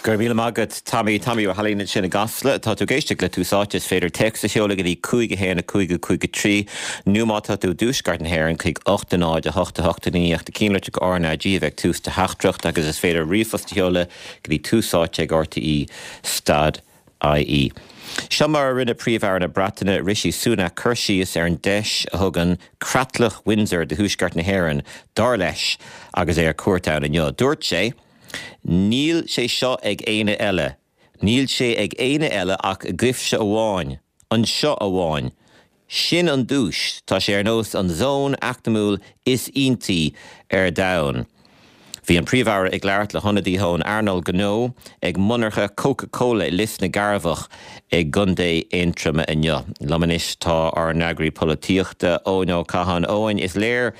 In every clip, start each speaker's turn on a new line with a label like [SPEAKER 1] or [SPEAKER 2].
[SPEAKER 1] Go raibh míle maith agat, Tommy. Tommy Ó hAilín ansin i gCasla. Tá tú ag éisteacht le Tús Áite. Is féidir téacs a sheoladh go dtí 5 1 5 5 3 nó má tá tú i dtuaisceart na hÉireann chuig 8 0 8 8 9 ach na ceannlitreacha RnaG a bheith ag tús do theachtaireacht agus is féidir ríomhphost a sheoladh go dtí Tús Áite ag RTÉ stad IE. Seo mar a rinne Príomh-Aire na Breataine, Rishi Sunak, cur síos ar an deis a thugann Creatlach Windsor do Thuaisceart na hÉireann, dar leis, agus é ar cuairt ann inniu. Dúirt sé, Níl sé seo ag éinne eile. Níl sé ag éinne eile ach agaibhse amháin. Anseo amháin. Sin an duais. Tá sé ar nós an zón eacnamúil is iontaí ar domhan. Bhí an Príomh-Aire ag labhairt le hionadaithe ón earnáil gnó ag monarcha Coca Cola i Lios na gCearrbhach i gContae Aontroma inniu. Liom anois tá ár n-eagraí polaitíochta, Eoin Ó Catháin. Eoin, is léir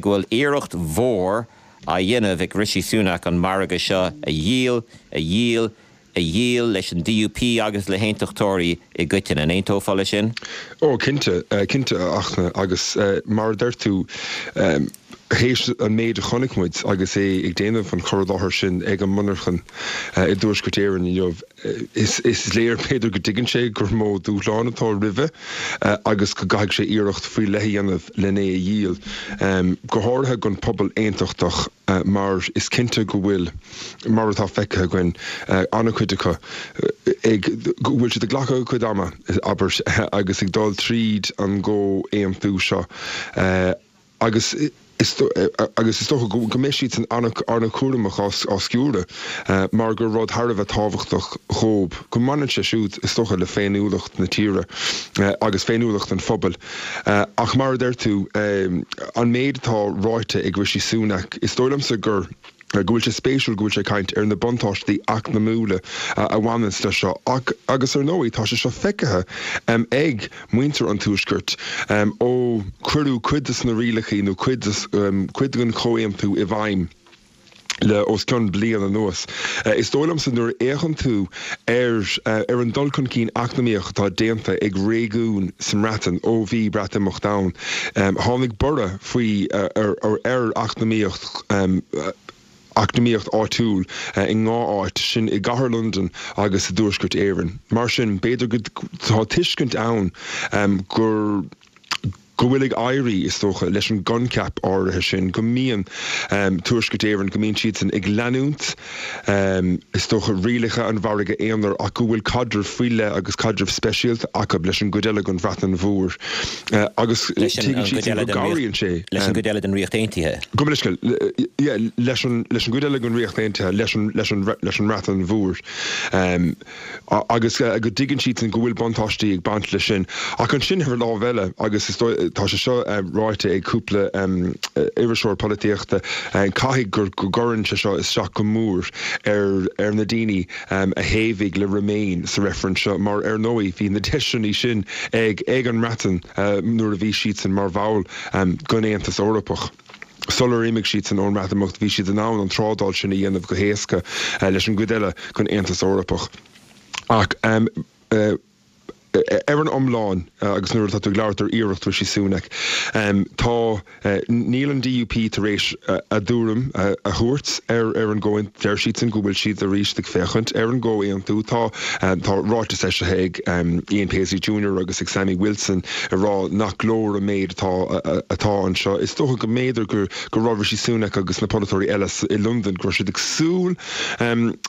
[SPEAKER 1] go bhfuil iarracht mhór á dhéanamh ag Rishi Sunak an margadh seo a dhíol, a dhíol, a dhíol leis an DUP agus le haontachtóirí i gcoitinne. An aontófá leis sin?
[SPEAKER 2] Ó, cinnte, cinnte, a Fhachtna, agus mar a deir tú, théis an méid a chonaic muid agus é ag déanamh an chur i láthair sin ag an monarchan i dTuaisceart Éireann inniu, is léir, b'fhéidir, go dtuigeann sé gur mó dúshlán atá roimhe agus go gcaithfidh sé iarracht faoi leith a dhéanamh len é a dhíol, go háirithe don phobal aontachtach mar is cinnte go bhfuil, mar atá feicthe againn, an-chuid acu ag, go bhfuil siad ag glacadh a gcuid ama, abair, agus ag dul tríd an gcomhaontú seo agus is agus is dócha go mbeidh siadsan an-chúramach á sciúradh mar gur rud thar a bheith tábhachtach dhóib, go mbaineann sé siúd, is dócha, le féiniúlacht na tíre agus féiniúlacht an phobail. Ach mar a deir tú, an méid atá ráite ag Rishi Sunak, is dóigh liomsa gur. go bhfuil sé spéisiúil go bhfuil sé ag caint ar na buntáistí eacnamúla a bhaineanns leis seo ach, agus ar ndóigh, tá sé seo feicthe ag muintir an Tuaiscirt ó cuireadh cuid de na rialacha nó cuid cuid den chomhaontú i bhfeidhm le os cionn bliain anuas. Is dóigh liomsa nuair a fhéachann tú ar ar an dul chun cinn eacnamaíoch atá déanta ag réigiúin sa mBreatain ó bhí Breatimeacht ann, tháinig borradh faoi ar ar eacnamaíocht eacnamaíocht áitiúil i ndhá áit, sin i gcathair Londan agus i dTuaisceart Éireann. Mar sin, b'fhéidir go tá tuiscint ann gur go bhfuil ag éirí, is dócha, leis an gcoincheap áirithe sin, go mbíonn Tuaisceart Éireann, go mbíonn siadsan ag leanúint, is dócha, rialacha an mhargaidh aonair ach go bhfuil caidreamh faoi leith agus caidreamh speisialta acu leis an gcuid eile den Bhreatain Mhór agus tuigeann siadsan go gcabhraíonn sé.
[SPEAKER 1] Leis an gcuid eile den Ríocht Aontaithe.
[SPEAKER 2] Gabh mo leithscéal, yeah, leis an gcuid eile den Ríocht Aontaithe, leis an mBreatain Mhór. Agus go dtuigeann siadsan go bhfuil buntáistí ag baint leis sin. Ach ansin ar an lámh eile, agus is dóigh, tá sé seo ráite ag cúpla iriseoir polaitíochta, caithfidh go gcuireann sé seo isteach go mór ar ar na daoine a thaobhaigh le Remain sa reifreann seo mar ar ndóigh bhí na deiseanna sin ag ag an mBreatain nuair a bhí siadsan mar bhall den Aontas Eorpach. Sular imigh siadsan ón mBreatimeacht bhí siad in ann an trádáil sin a dhéanamh go héasca leis an gcuid eile den Aontas Eorpach. Ach ar an iomlán, agus nuair atá tú ag labhairt ar iarracht Rishi Sunak, tá, níl an DUP tar éis a dtuairim a thabhairt ar ar an gcomhaontú. Deir siadsan go bhfuil siad arís ag féachaint ar an gcomhaontú. Tá, tá ráiteas eisithe ag Ian Paisley Junior agus ag Sammy Wilson ag rá nach leor an méid atá atá anseo. Is dócha go mb'fhéidir go go raibh Rishi Sunak agus na polaiteoirí eile i Londain, go raibh siad ag súil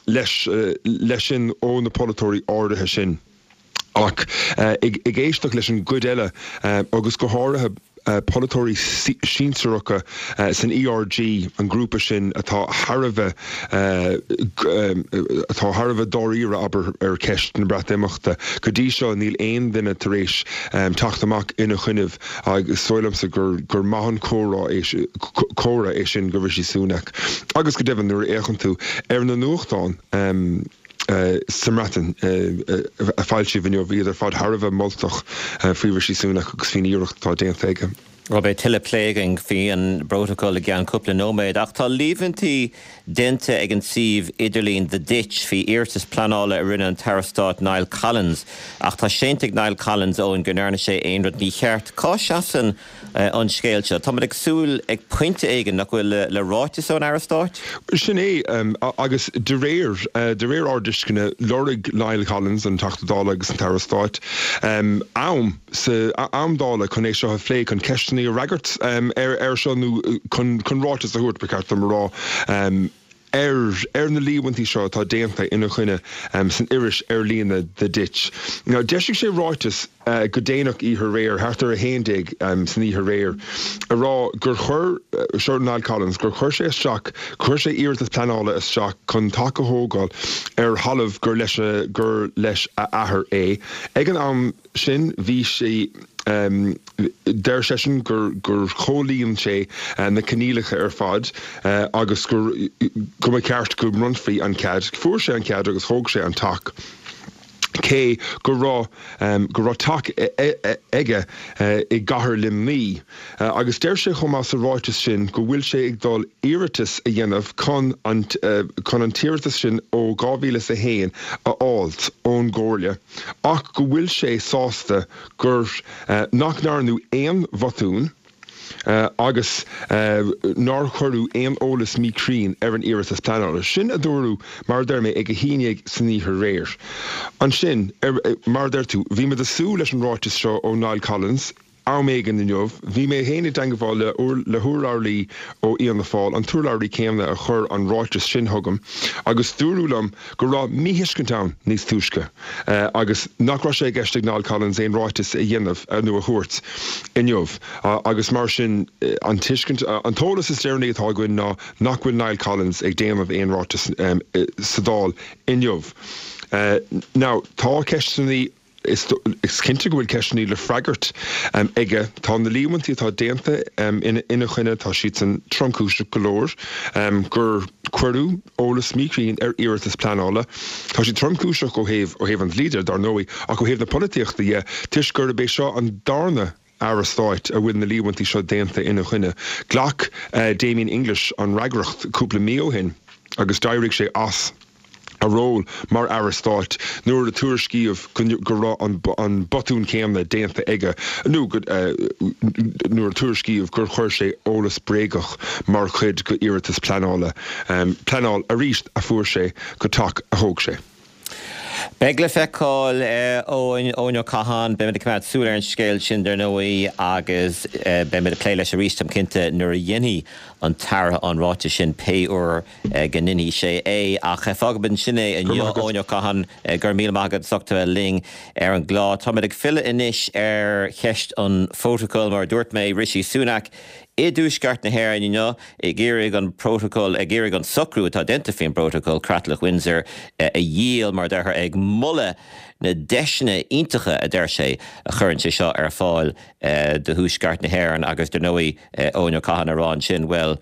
[SPEAKER 2] leis leis sin ó na polaiteoirí áirithe sin. Ach ag éisteacht leis an gcuid eile agus go háirithe polaiteoirí sinsearacha san ERG, an grúpa sin atá thar a bheith atá thar a bheith dáiríre, abair, ar cheist na Breatimeachta. Go dtí seo níl aon duine tar éis teacht amach ina choinnibh agus is dóigh liomsa gur gur maith an comhrá é comhartha é sin do Rishi Sunak. Agus go deimhin nuair a fhéachann tú ar na nuachtáin sa mBreatain a foilsíodh inniu, bhí iad ar fad thar a bheith moltach faoi Rishi Sunak agus faoin iarracht atá déanta aige.
[SPEAKER 1] Bhuel, beidh tuilleadh plé againn faoi an bprótacal i gceann cúpla nóiméad, ach tá líomhaintí déanta ag an suíomh idirlín The Ditch faoi iarratas pleanála a rinne an tAire Stáit Niall Collins. Ach tá séanta ag Niall Collins, Eoin, go ndearna sé aon rud mícheart. Cá seasann an scéal seo? Táimid ag súil ag pointe éigin, nach bhfuil, le ráiteas ón Aire Stáit?
[SPEAKER 2] Sin é, agus de réir, de réir ár dtuisceana, lorg Niall Collins, an Teachta Dála agus an tAire Stáit, am. sa am Dála chun é seo a phlé, chun ceisteanna a fhreagairt air seo nó chun ráiteas a thabhairt, ba cheart dom a rá, ar ar na líomhaintí seo atá déanta ina choinne san iris ar líne The Ditch. Now, d'eisigh sé ráiteas go déanach oíche aréir, thart ar 11 san oíche aréir, a rá gur chuir, seo Niall Collins, gur chuir sé isteach, chuir sé iarratas pleanála isteach chun teach a thógáil ar thalamh gur leis, gur leis a athair é. Ag an am, sin, bhí sé, deir seisean gur gur chomhlíon sé na coinníollacha ar fad agus gur go mba cheart go mbronnfaí an cead. Fuair sé an cead agus thóg sé an teach cé go raibh go raibh teach aige i gcathair Luimnigh. Agus deir sé chomh maith sa ráiteas sin go bhfuil sé ag dul iarratas a dhéanamh chun an chun an t-iarratas sin ó 2001 a fháilt ón gComhairle. ach go bhfuil sé sásta gur nach ndearnadh aon bhotún agus nár cuireadh aon eolas míchruinn ar an iarratas pleanála. Sin a dúradh, mar a deir mé, ag 11 san oíche aréir. Ansin, mar a deir tú, bhí muid ag súil leis an ráiteas seo ó Niall Collins, Am éigin inniu, bhí mé féin i dteangmháil le hurlabhraí ó Fhianna Fáil, an t-urlabhraí céanna a chuir an ráiteas sin chugam, agus dúradh liom go raibh míthuiscint ann níos túisce agus nach raibh sé i gceist ag Niall Collins aon ráiteas a dhéanamh nó a thabhairt inniu agus mar sin an tuiscint, an t-eolas is deireanaí atá againn ná nach bhfuil Niall Collins ag déanamh aon ráiteas sa Dáil inniu. Now, tá ceisteanna. Is cinnte go bhfuil ceisteanna le freagairt aige. Tá na líomhaintí atá déanta ina choinne, tá siadsan tromchúiseach go leor, gur cuireadh eolas míchruinn ar iarratas pleanála. Tá siad tromchúiseach ó thaobh ó thaobh an dlí de, dar ndóigh, ach ó thaobh na polaitíochta dhe, toisc gurb é seo an darna Aire Stáit a bhfuil na líomhaintí seo déanta ina choinne. Ghlac Damien English an fhreagracht cúpla mí ó shin agus d'éirigh sé as. a ról mar Aire Stáit nuair a tuairiscíodh go raibh an botún céanna déanta aige nó nuair a tuairiscíodh gur chuir sé eolas bréagach mar chuid de iarratas pleanála, pleanáil arís a fuair sé go teach a thóg sé.
[SPEAKER 1] Beidh le feiceáil, Eoin, Eoin Ó Catháin. Beimid ag coimeád súil ar an scéal sin, dar ndóigh, agus beimid ag plé leis arís, táim cinnte, nuair a dhéanfaidh an tAire an ráiteas sin, pé uair go ndéanfaidh sé é. Ach fágfaimid ansin é inniu, Eoin Ó Catháin, go raibh míle maith agat as ucht a bheith linn ar an gclár. Táimid ag filleadh anois ar cheist an phrótacail. Mar a dúirt mé, Rishi Sunak i dTuaisceart na hÉireann inniu ag iarraidh an prótacal, ag iarraidh an socrú atá déanta faoin bprótacal, Creatlach Windsor, a dhíol, mar a déarfá, ag moladh na deiseanna iontacha, a deir sé, a chuireann sé seo ar fáil do Thuaisceart na hÉireann agus, dar ndóigh, Eoin Ó Catháin ag rá ansin, bhuel,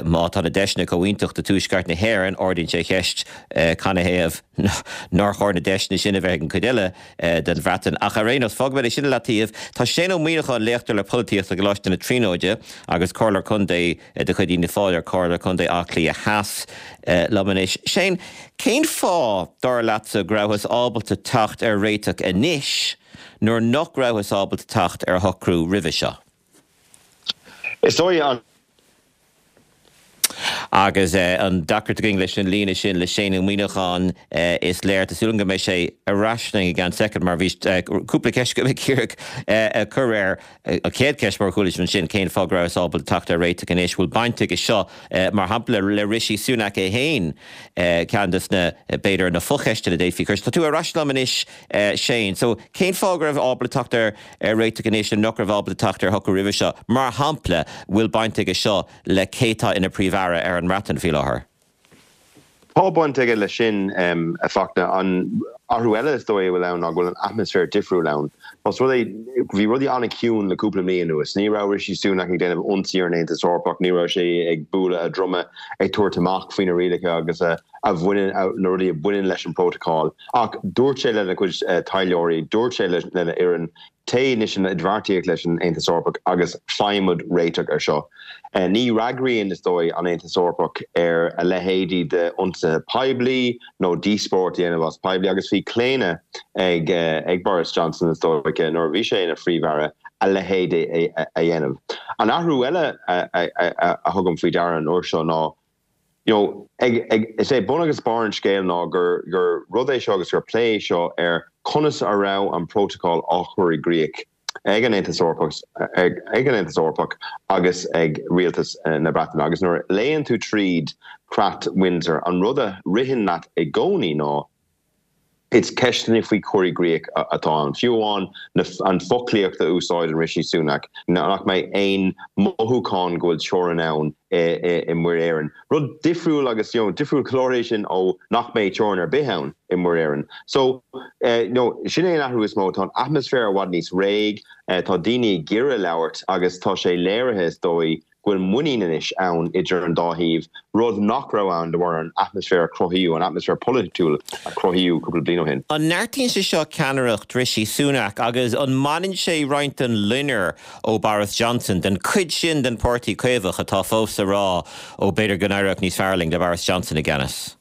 [SPEAKER 1] Má tá na deiseanna chomh iontach do Tuaisceart na hÉireann, ardaíonn sé an cheist canathaobh nár chóir na deiseanna sin a bheith ag an gcuid eile den Bhreatain. Ach ar aon nós, fágfaimid é sin i leataobh. Tá Shane Ó Muíneacháin, léachtóir le polaitíocht i gColáiste na Tríonóide agus Comhairleoir Contae de chuid Fhianna Fáil ar Chomhairle Contae Átha Cliath Theas, liom anois. Shane, cén fáth, dar leatsa, go rabhthas ábalta teacht ar réiteach anois nuair nach rabhthas ábalta teacht ar shocrú roimhe seo?
[SPEAKER 3] Is dóigh an.
[SPEAKER 1] Agus an deacracht againn leis an líne sin le Shane Ó Muíneacháin, is léir. Tá súil agam go mbeidh sé ar ais linn i gceann soicind mar bhí cúpla ceist agam ag iarraidh a chur air. An chéad cheist, mar a chuala sibh ansin, cén fáth go rabhthas ábalta teacht ar réiteach anois? Bhfuil baint aige seo, mar shampla, le Rishi Sunak é féin? Ceann de na, b'fhéidir, na focheisteanna a d'fhéadfaí a chur. Tá tú ar ais liom anois, Shane. So, cén fáth go raibh ábalta teacht ar ar réiteach anois nuair nach raibh ábalta teacht ar shocrú roimhe seo? Mar shampla, bhfuil baint aige seo le cé tá ina Phríomh-Aire ar an mBreatain faoi láthair?
[SPEAKER 3] Tá baint aige leis sin, a Fachtna. Athrú eile is dóigh a bhfuil ann ná go bhfuil an atmaisféar difriúil ann. Más rud é, bhí rudaí an-chiúin le cúpla mí anuas. Ní raibh Rishi Sunak ag déanamh ionsaí ar an Aontas Eorpach, ní raibh sé ag bualadh a dhroma ag tabhairt amach faoi na rialacha agus a bhaineann, na rudaí a bhaineann leis an bprótacal. Ach dúirt sé lena chuid taidhleoirí, dúirt sé lena fhoireann, Téigh anois in idirbheartaíocht leis an Aontas Eorpach agus faighimid réiteach ar seo. Ní fhreagraíonn, is dóigh, an Aontas Eorpach ar a leithéidí d'ionsaithe poiblí nó díospóireacht a dhéanamh as poiblí agus bhí claonadh ag ag Boris Johnson, is dóiche, nuair a bhí sé ina Phríomh-Aire, a leithéid a dhéanamh. An athrú eile a thugaim faoi deara an uair seo ná, you know, ag, ag, is é bun agus barr an scéil ná gur, gur rud é seo agus gur plé é seo ar conas a raibh an prótacal á chur i gcrích ag an Aontas Eorpach, ag, ag an Aontas Eorpach agus ag Rialtas na Breataine. Agus nuair a léann tú tríd Creat Windsor, an rud a ritheann leat i gcónaí ná, Is ceisteanna faoi chur i gcrích atá ann. Fiú amháin an foclaíocht a úsáideann Rishi Sunak, nach mbeidh aon mothúchán go bhfuil teorainn ann i Muir Éireann. Rud difriúil agus you know difriúil go leor é sin ó nach mbeidh teorainn ar bith ann i Muir Éireann. So you know sin é an athrú is mó. Tá an atmaisféar i bhfad níos réidh, tá daoine ag iarraidh labhairt agus tá sé léirithe is dóigh go bhfuil muinín anois ann idir an dá thaobh, rud nach raibh ann de bharr an atmaisféar a cruthaíodh, an atmaisféar polaitiúil a cruthaíodh cúpla bliain ó shin.
[SPEAKER 1] An neartaíonn sé seo ceannaireacht Rishi Sunak agus an mbaineann sé roinnt den loinnir ó Boris Johnson, den chuid sin den Pháirtí Caomhach atá fós ag rá ó b'fhéidir go n-éireodh níos fearr linn le Boris Johnson i gceannas?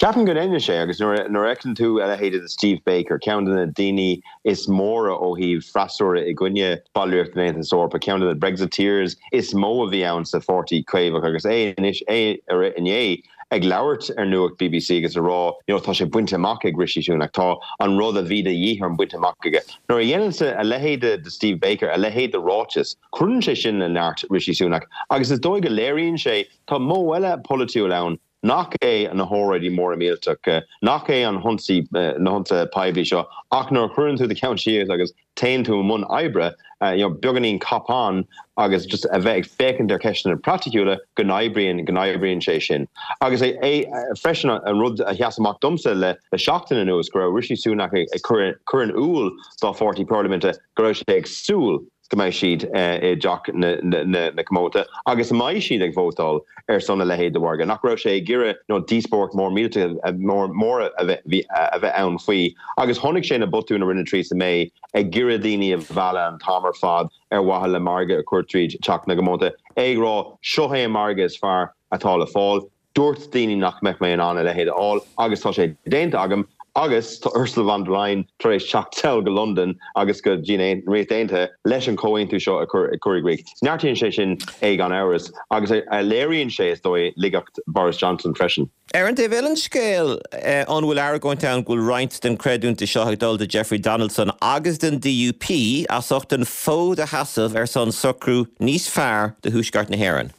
[SPEAKER 3] Ceapaim go ndéanann sé, agus nuair a fheiceann tú a leithéide de Steve Baker, ceann de na daoine is móra ó thaobh freasúra i gcoinne ballraíocht den Aontas Eorpach, ceann de na Brexiteers is mó a bhí ann sa Pháirtí Caomhach agus é anois, é inné ag labhairt ar Nuacht bbc agus ag rá you know tá sé bainte amach ag Rishi Sunak, tá an rud a bhí de dhíth orm bainte amach aige. Nuair a dhéanann a leithéide de Steve Baker a leithéid de ráiteas, cuireann sé sin le neart Rishi Sunak agus is dóigh go léiríonn sé tá modh eile polaitiúil ann nach é na hóráidí móra millteacha, nach é an hionsaí, na hionsaithe poiblí seo, ach nuair a chuireann tú do cheann síos agus téann tú i mbun oibre, you know, beagáinín cop-on agus just a bheith ag féachaint ar cheisteanna praiticiúla, go n-oibríonn, go n-oibríonn sé sin. Agus é, é, freisin, an rud a sheas amach domsa le, le seachtain anuas, go raibh Rishi Sunak ag cur, cur in iúl dá pháirtí parlaiminte go raibh sé ag súil go mbeidh siad i dTeach na Comónta agus a mbeidh siad ag vótáil ar son a leithéid de mhargadh, nach raibh sé ag iarraidh you know díospóireacht mór millteach mór a bheith ann faoi. Agus chonaic sé na botúin a rinne Theresa May ag iarraidh daoine a mhealladh an t-am ar fad ar mhaithe le margadh a chur tríd Teach na gComónta, é ag rá seo é an margadh is fearr atá le fáil. Dúirt daoine nach mbeadh mé in ann a leithéid a fháil agus tá sé déanta agam agus tá Ursula von der Leyen tar éis teacht sall go Londain agus go dtí an Ríocht Aontaithe leis an chomhaontú seo a chur i gcrích. Neartaíonn sé sin é gan amhras agus léiríonn sé, is dóigh, laigeacht Boris Johnson freisin.
[SPEAKER 1] Ar an taobh eile den scéal, an bhfuil argóint ann go bhfuil roinnt den chreidiúint seo ag dul do Jeffrey Donaldson agus don DUP as ucht an fód a sheasamh ar son socrú níos fearr do Thuaisceart na hÉireann?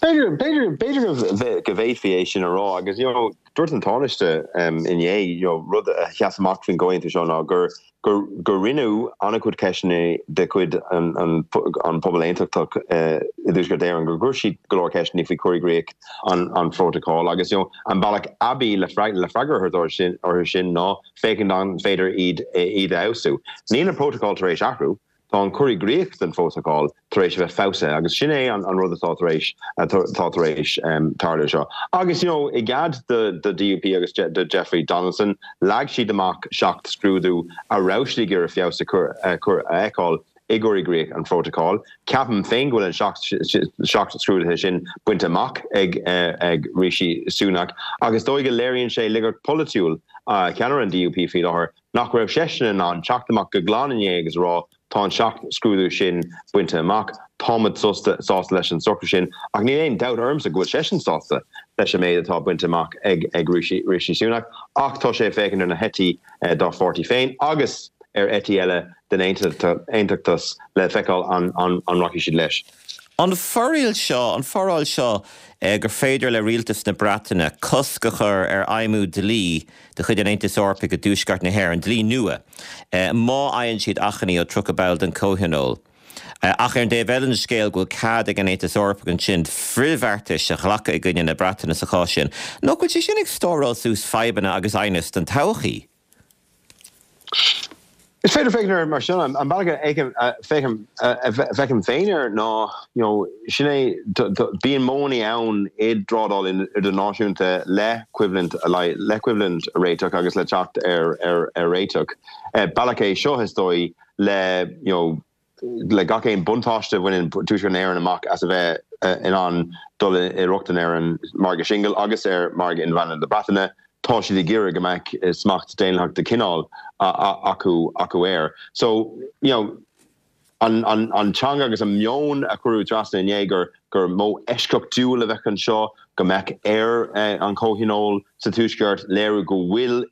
[SPEAKER 3] B'fhéidir, b'fhéidir, b'fhéidir go bhféadfaí é sin a rá agus you know dúirt an Tánaiste inné you know rud a sheas amach faoin gcomhaontú seo ná gur, gur, gur rinneadh an-chuid ceisteanna de chuid an, an, an pobal aontachtach i dTuaisceart Éireann, gur chuir siad go leor ceisteanna faoi chur i gcrích an, an phrótacail agus you know an bealach aibí le le freagra a thabhairt orthu sin, orthu sin ná féachaint an féidir iad, iad a fheabhsú. Níl an prótacal tar éis athrú. Tá an cur i gcrích den phrótacal tar éis a bheith feabhsaithe agus sin é an rud atá tar éis atá tar éis tarlú seo. Agus you know i gcead do do DUP agus do Jeffrey Donaldson, leag siad amach 7 scrúdú a raibh siad ag iarraidh feabhas a chur a chur a fheiceáil i gcur i gcrích an phrótacail. Ceapaim féin go bhfuil an 7 7 scrúduithe sin bainte amach ag ag Rishi Sunak agus is dóigh go léiríonn sé laigeacht polaitiúil cheannaire an DUP faoi láthair nach raibh seisean in ann teacht amach go glan inné agus a rá tá an 7 scrúdú sin bainte amach, táimid sásta leis an socrú sin ach níl aon dabht ormsa go bhfuil seisean sásta leis an méid atá bainte amach ag Rishi Sunak ach tá sé ag féachaint ar na heití dá pháirtí féin agus ar eití eile den aontachtas le feiceáil an rachaidh siad leis.
[SPEAKER 1] An foráil seo, an foráil seo gur féidir le rialtas na Breataine cosc a chur ar fheidhmiú dlí de chuid an Aontais Eorpaigh i dTuaisceart na hÉireann, dlí nua, má fhaigheann siad achainí ó 30 ball den Chomhthionól. Ach ar an dtaobh eile den scéal go bhfuil cead ag an Aontas Eorpach ansin frithbheartais a ghlacadh i gcoinne na Breataine sa chás sin. Nach bhfuil sé sin ag stóráil suas fadhbanna agus aighneas don todhchaí?
[SPEAKER 3] Is féidir féachaint air mar sin. An bealach a bhfeicim féin air ná, you know, sin é, bíonn modhanna ann i dtrádáil idirnáisiúnta le coimhlint le coimhlint a réiteach agus le teacht ar réiteach. Bealach é seo, is dóigh, le, you know, le gach aon buntáiste a bhaineann Tuaisceart na hÉireann amach as a bheith in ann dul i rochtain ar an margadh singil agus ar mhargadh inmheánach na Breataine, tá siad ag iarraidh go mbeadh smacht daonlathach de chineál acu acu air. So, you know, an an teanga agus an meon a cuireadh trasna inné gur gur modh eisceachtúil a bheadh anseo, go mbeadh ar an Chomhthionól sa Tuaisceart léiriú go bhfuil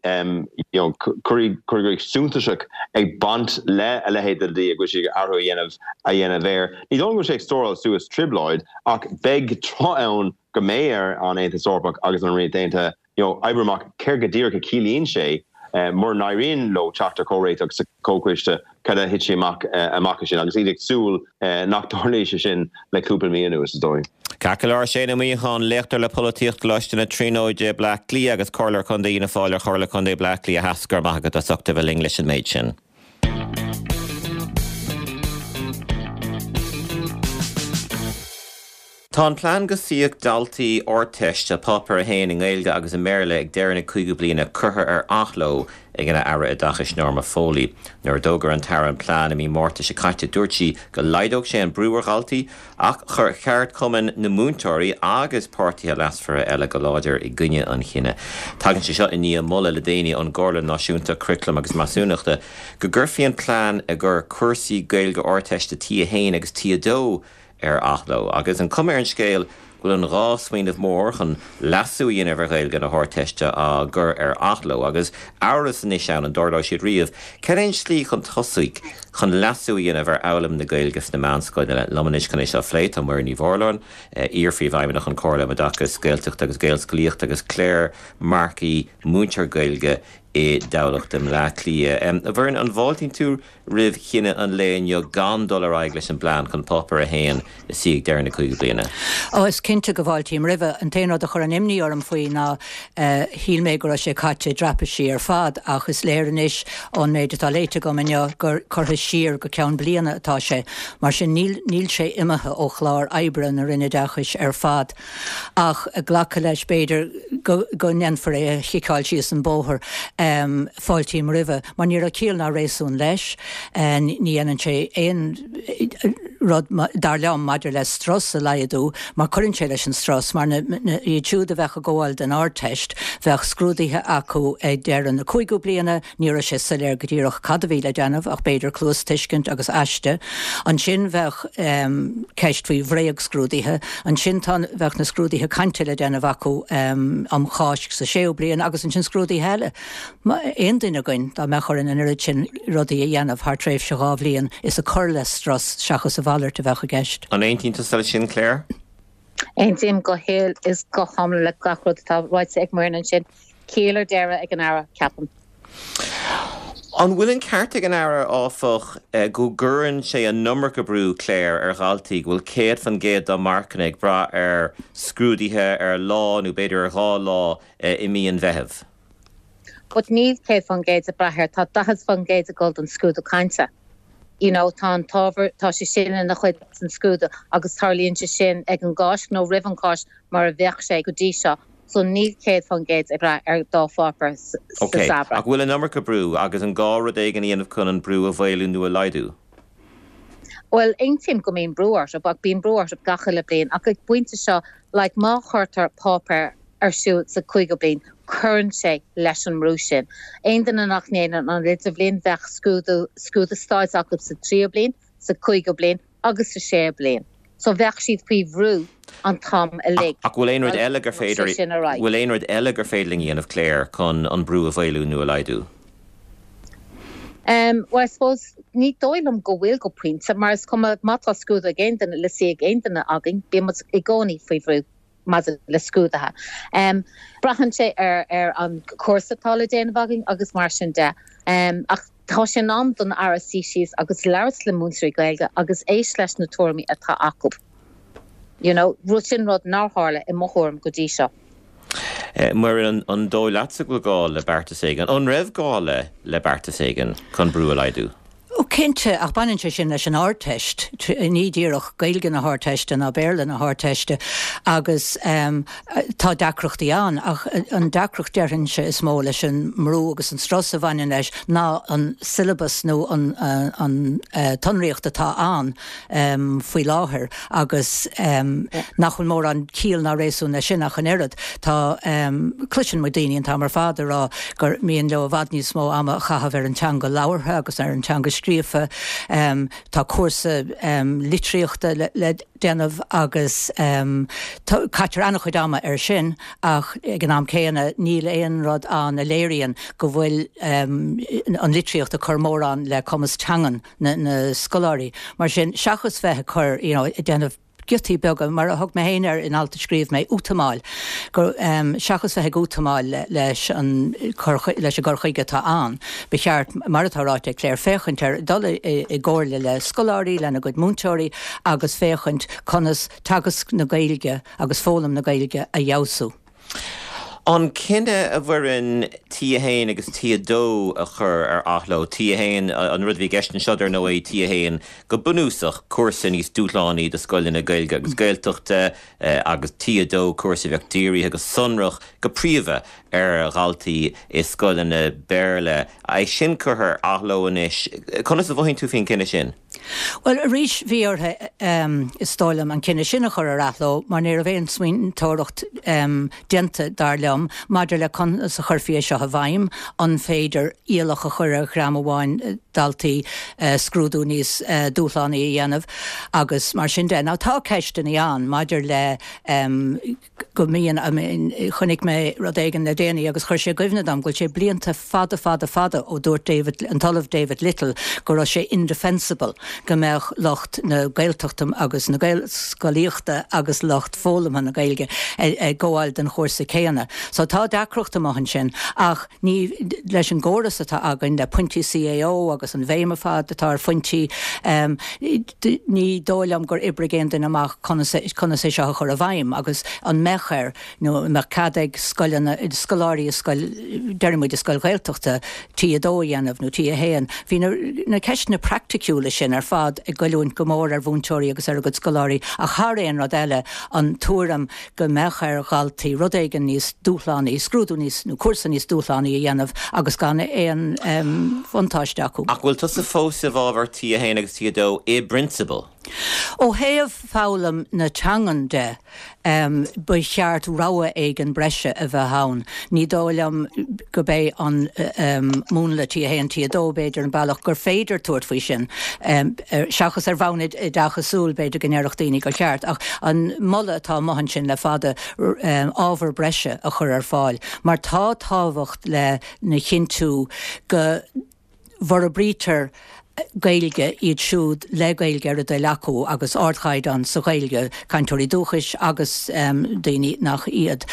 [SPEAKER 3] you know cur chuige suntasach ag baint le a leithéid de dhlí, go bhfuil siad ag athrú a dhéanamh a dhéanamh air. Ní dóigh liom go bhfuil sé ag stóráil suas trioblóid ach beidh tráth ann go mbeidh ar an Aontas Eorpach agus an Ríocht Aontaithe you know, oibriú amach céard go díreach a chiallaíonn sé mura n-éiríonn leo teacht ar chomhréiteach sa Chomhchoiste, cad a thitfidh amach amach as sin agus iad ag súil nach dtarlóidh sé sin le cúpla mí anuas, is dóigh.
[SPEAKER 1] Ceart go leor, Shane Ó Muíneacháin, léachtóir le Polaitíocht, Coláiste na Tríonóide, Bleá Cliath agus Comhairleoir Contae Fhianna Fáil ar Chomhairle Contae Bleá Cliath Theas, go raibh maith agat as ucht a bheith linn leis an méid sin. Tá an plean go suífeadh daltaí Ardteiste Páipéar 1 i nGaeilge agus i mBéarla ag deireadh na cúigiú bliana curtha ar athló ag an Aire Oideachais Norma Foley. Nuair a d'fhógair an tAire an plean i mí Márta seo caite dúirt sí go laghdódh sé an brú ar dhaltaí ach chuir ceardchumainn na múinteoirí agus páirtithe leasmhara eile go láidir i gcoinne an chinnidh. Tagann sé seo i ndiaidh moladh le déanaí ón gComhairle Náisiúnta Curaclaim agus Measúnachta go gcuirfí an plean i gcomhair cúrsaí Gaeilge Ardteiste T1 agus T2 ar athló. Agus an cuma ar an scéal go bhfuil an dá smaoineamh mór chun leasú a dhéanamh ar Ghaeilge na hArdteiste á gcur ar athló, agus amhras anois ann an dtarlóidh siad riamh, cad é an tslí chun tosaigh chun leasú a dhéanamh ar fhoghlaim na Gaeilge sna meánscoileanna? Liom anois chun é seo a phlé tá Muireann Ní Mhurláin, iar-phríomhfheidhmeannach an Chomhairle um Oideachas Gaeltachta agus Gaelscolaíochta agus Claire Markey, múinteoir Gaeilge i dTamhlacht i mBleá Cliath. A Mhuireann, an bhfáiltíonn tú roimh chinneadh an lae inniu gan dul ar aghaidh leis an bplean chun Páipéar 1 a suí ag deireadh na cúigiú bliana?
[SPEAKER 4] Ó, is cinnte go bhfáiltím roimhe. An t-aon rud a chuireann imní orm faoi ná shíl mé go raibh sé caite i dtraipisí ar fad ach is léir anois ón méid atá léite agam inniu gur curtha siar go ceann bliana atá sé. Mar sin níl níl sé imithe ó chlár oibre na Roinne Oideachais ar fad. Ach glacadh leis b'fhéidir go go ndéanfar é a chiceáil síos an bóthar. Fáiltím roimhe. Mar ní raibh ciall ná réasún leis. Ní dhéanann sé aon rud, dar liom, maidir le strus a laghdú, mar cuireann sé leis an strus, mar na, iad siúd a bheadh ag gabháil don Ardteist, bheadh scrúduithe acu ag deireadh na cúigiú bliana, ní raibh sé soiléir go díreach cad a bhí le déanamh ach b'fhéidir cluastuiscint agus aiste. Ansin bheadh ceist faoi bhréagscrúduithe. Ansin tá, bheadh na scrúduithe cainte le déanamh acu um Cháisc sa séú bliain agus ansin scrúduithe eile. Aon duine againn, dá mbeadh orainn an oiread sin rudaí a dhéanamh thar tréimhse 2 bhliain, is ag cur le strus seachas a mhalairt a bheadh i gceist.
[SPEAKER 1] An aontaíonn tusa leis sin, Claire?
[SPEAKER 5] Aontaím go huile is go hiomlán le gach rud atá ráite ag Muireann ansin. Ciall ar deireadh ag an Aire, ceapaim.
[SPEAKER 1] An bhfuil an ceart ag an Aire, áfach, go gcuireann sé an iomarca brú, Claire, ar dhaltaí, go bhfuil 100% dá marcanna ag brath ar scrúduithe ar lá nó b'fhéidir ar dhá lá i mí an Mheithimh?
[SPEAKER 5] But níl 100% ag brath air, tá 40% ag dul don scrúdú cainte. You know, tá an t-ábhar, tá sé sin ina chuid den scrúdú agus tarlaíonn sé sin ag an gCáisc nó roimh an Cháisc mar a bheadh sé go dtí seo. So níl 100% ag brath ar dá pháipéar sa
[SPEAKER 1] Ok,
[SPEAKER 5] samhradh.
[SPEAKER 1] ach bhfuil an iomarca brú agus an gá rud éigin a dhéanamh chun an brú a mhaolú nó a laghdú?
[SPEAKER 5] Bhuel, aontaím go mbíonn brú orthu, ach bíonn brú orthu gach uile bliain. Ach ag pointe seo, like, má chuirtear páipéar ar siúl sa cúigiú bliain, cuireann sé leis an mbrú sin. Aon duine nach ndéanann an idirbhliain, bheadh scrúdú, scrúdú stáit acu sa tríú bliain, sa cúigiú bliain agus sa séú bliain. So bheadh siad faoi bhrú an t-am uilig.
[SPEAKER 1] Ach bhfuil aon rud eile gur féidir, bhfuil aon rud eile gur féidir linn a dhéanamh, Claire, chun an brú a mhaolú nó a laghdú?
[SPEAKER 5] Em, well I suppose ní dóigh liom go bhfuil go pointe, mar is cuma má tá scrúdú ag aon duine, le suí ag aon duine againn, bíonn muid i gcónaí faoi bhrú maidir le scrúduithe. Em, braitheann sé ar ar an cúrsa atá le déanamh againn agus mar sin de. Em, ach. Tá sé in am don Aire suí síos agus labhairt le múinteoirí Gaeilge agus éist leis na tuairimí atá acu. You know, rud sin rud nár tharla i mo thuairim go dtí seo.
[SPEAKER 1] Muireann, an dóigh leatsa go bhfuil gá le beartas éigin? An raibh gá le le beartas éigin chun brú a laghdú?
[SPEAKER 4] Ó cinnte, ach baineann sé sin leis an Ardteist, ní díreach Gaeilge na hArdteiste ná Béarla na hArdteiste agus tá deacrachtaí ann ach an deacracht déarfainnse is mó leis an mbrú agus an strus a bhaineann leis ná an syllabus nó an an tsonraíocht atá ann faoi láthair agus nach bhfuil mórán ciall ná réasún leis sin ach an oiread. Tá, cloiseann muid daoine an t-am ar fad ag rá gur mian leo i bhfad níos mó ama a chaitheamh ar an teanga labhartha agus ar an teanga scríofa. Tá cúrsa litríochta le déanamh agus caitear an-chuid ama air sin ach ag an am céanna níl aon rud ann a léiríonn go bhfuil an litríocht ag cur mórán le cumas teangan na scoláirí. Mar sin, seachas bheith ag cur, you know, ag déanamh giotaí beaga, mar a thug mé féin air in alt a scríobh mé, útamáil, gur, seachas bheith ag útamáil leis an cur, leis an gcur chuige atá ann, ba cheart, mar atá ráite ag Claire, féachaint ar, dul i gcomhairle le scoláirí, lena gcuid múinteoirí agus féachaint conas teagasc na Gaeilge agus foghlaim na Gaeilge a fheabhsú.
[SPEAKER 1] An cinneadh, a Mhuireann, T1 agus T2 a chur ar athló, T1, an rud a bhí i gceist anseo, dar ndóigh, T1 go bunúsach, cúrsa níos dúshlánaí do scoileanna Gaeilge agus Gaeltachta, agus T2, cúrsa a bheadh dírithe go sonrach, go príomha, ar dhaltaí i scoileanna Béarla. É sin curtha ar athló anois. Conas a mhothaíonn tú faoin gcinneadh sin?
[SPEAKER 4] Bhuel, arís, bhí orthu, is dóigh liom, an cinneadh sin a chur ar athló mar ní raibh aon smaointeoireacht déanta, dar liom, maidir le conas a chuirfí é seo i bhfeidhm, an féidir iallach a chur ar dhream amháin daltaí scrúdú níos dúshlánaí a dhéanamh agus mar sin de. Now tá ceisteanna ann maidir le go mbíonn, I mean, chonaic mé rud éigin le déanaí agus chuir sé i gcuimhne dom go bhfuil sé blianta fada fada fada ó dúirt David, an tOllamh David Little go raibh sé indefensible go mbeadh lucht na Gaeltachta agus na Gaelscolaíochta agus lucht foghlamtha na Gaeilge ag gabháil don chúrsa céanna. So tá deacracht amuigh ansin ach ní, leis an gcóras atá againn le pointí CAO agus an bhéim ar fad atá ar phointí, Ní dóigh liom gur oibrigh aon duine amach conas conas é seo a chur i bhfeidhm agus an mbeadh air nó an mbeadh cead ag scoileanna, scoláirí i scoil, déarfaidh muid i scoil Ghaeltachta, T2 a dhéanamh nó T1. Bhí na na ceisteanna praiticiúla sin ar fad ag goilliúint go mór ar mhúinteoirí agus ar a gcuid scoláirí ach thar aon rud eile an tuairim go mbeadh ar dhaltaí rud éigin níos dúshlánaí, scrúdú níos, nó cúrsa níos dúshlánaí a dhéanamh agus gan aon bhuntáiste acu.
[SPEAKER 1] Ach bhfuil tusa fós i bhfabhar T1 agus T2 i bprionsabal?
[SPEAKER 4] Ó thaobh foghlaim na teangan de, ba cheart rogha éigin breise a bheith ann. Ní dóigh liom gurb é an múnla T1, T2 b'fhéidir an bealach gur féidir tabhairt faoi sin. Seachas ar bhonn oideachasúil, b'fhéidir go ndéarfadh daoine gur cheart, ach an moladh atá amuigh ansin le fada, ábhar breise a chur ar fáil, mar tá tábhacht lena chinntiú go bhforbraítear Gaeilge iad siúd le Gaeilge ar a dtoil acu agus ardchaighdeán sa Ghaeilge, cainteoirí dúchais agus daoine nach iad.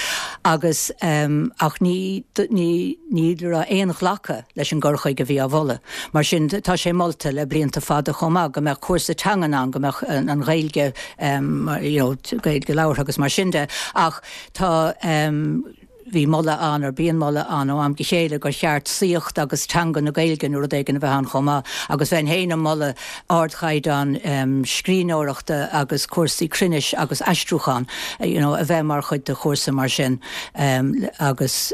[SPEAKER 4] Agus ach ní ní ní raibh aon ghlacadh leis an gcur chuige a bhí á mholadh. Mar sin, tá sé molta le blianta fada chomh maith go mbeadh cúrsa teangan ann, go mbeadh an Ghaeilge, you know, Gaeilge labhartha agus mar sin de, ach tá, bhí moladh ann, or bíonn moladh ann ó am go chéile gur cheart saíocht agus teanga na Gaeilge nó rud éigin a bheith ann chomh maith agus bheinn féin ag moladh ardchaighdeán scríbhneoireachta agus cúrsaí cruinnis agus aistriúchán, you know, a bheith mar chuid de chúrsa mar sin agus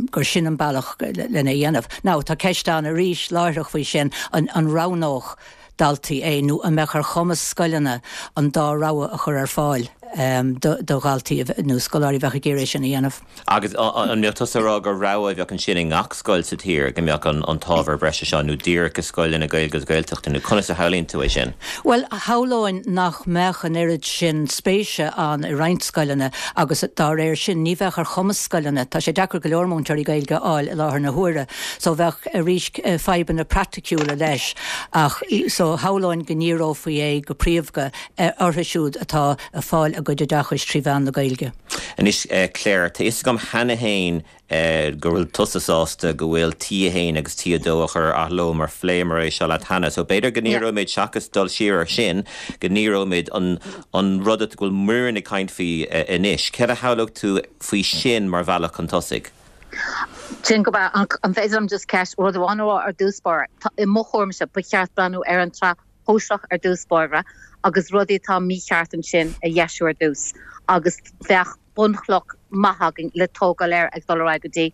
[SPEAKER 4] gur sin an bealach lena dhéanamh. Now, tá ceist ann arís láithreach faoi sin, an roghnódh daltaí é nó an mbeadh ar chumas scoileanna an dá rogha a chur ar fáil do dhaltaí nó scoláirí a bheadh ag iarraidh é sin a dhéanamh?
[SPEAKER 1] Agus an mbeadh tusa ag rá gur rogha a bheadh ansin i ngach scoil sa tír, go mbeadh an t-ábhar breise seo, nó díreach i scoileanna Gaeilge agus Gaeltachta, nó conas a shamhlaíonn tú é sin?
[SPEAKER 4] Bhuel, shamhlóinn nach mbeadh an oiread sin spéise ann i roinnt scoileanna agus dá réir sin ní bheadh ar chumas scoileanna, tá sé deacair go leor múinteoirí Gaeilge a fháil i láthair na huaire so bheadh arís fadhbanna praiticiúla leis ach so shamhlóinn go ndíreofaí é go príomha orthu siúd atá ag fáil a. gcuid oideachais trí mheán na Gaeilge.
[SPEAKER 1] Anois, Claire, tá fhios agam cheana féin go bhfuil tusa sásta go bhfuil T1 agus T2 á chur ar athló mar phléamar é seo leat cheana. So b'fhéidir go ndíreoimid, seachas dul siar ar sin, go ndíreoimid an an rud go bhfuil Muireann ag caint faoi anois. Céard a shamhlódh tú faoi sin mar bhealach chun tosaigh?
[SPEAKER 5] Sin go breá. An féidir liom just ceist, rud amháin a rá ar dtús báire? I mo thuairimse, ba cheart breathnú ar an tsraith shóisearach ar dtús báire agus rudaí atá mícheart ansin a dheisiú ar dtús agus bheadh bunchloch maith againn le tógáil air ag dul ar aghaidh go dtí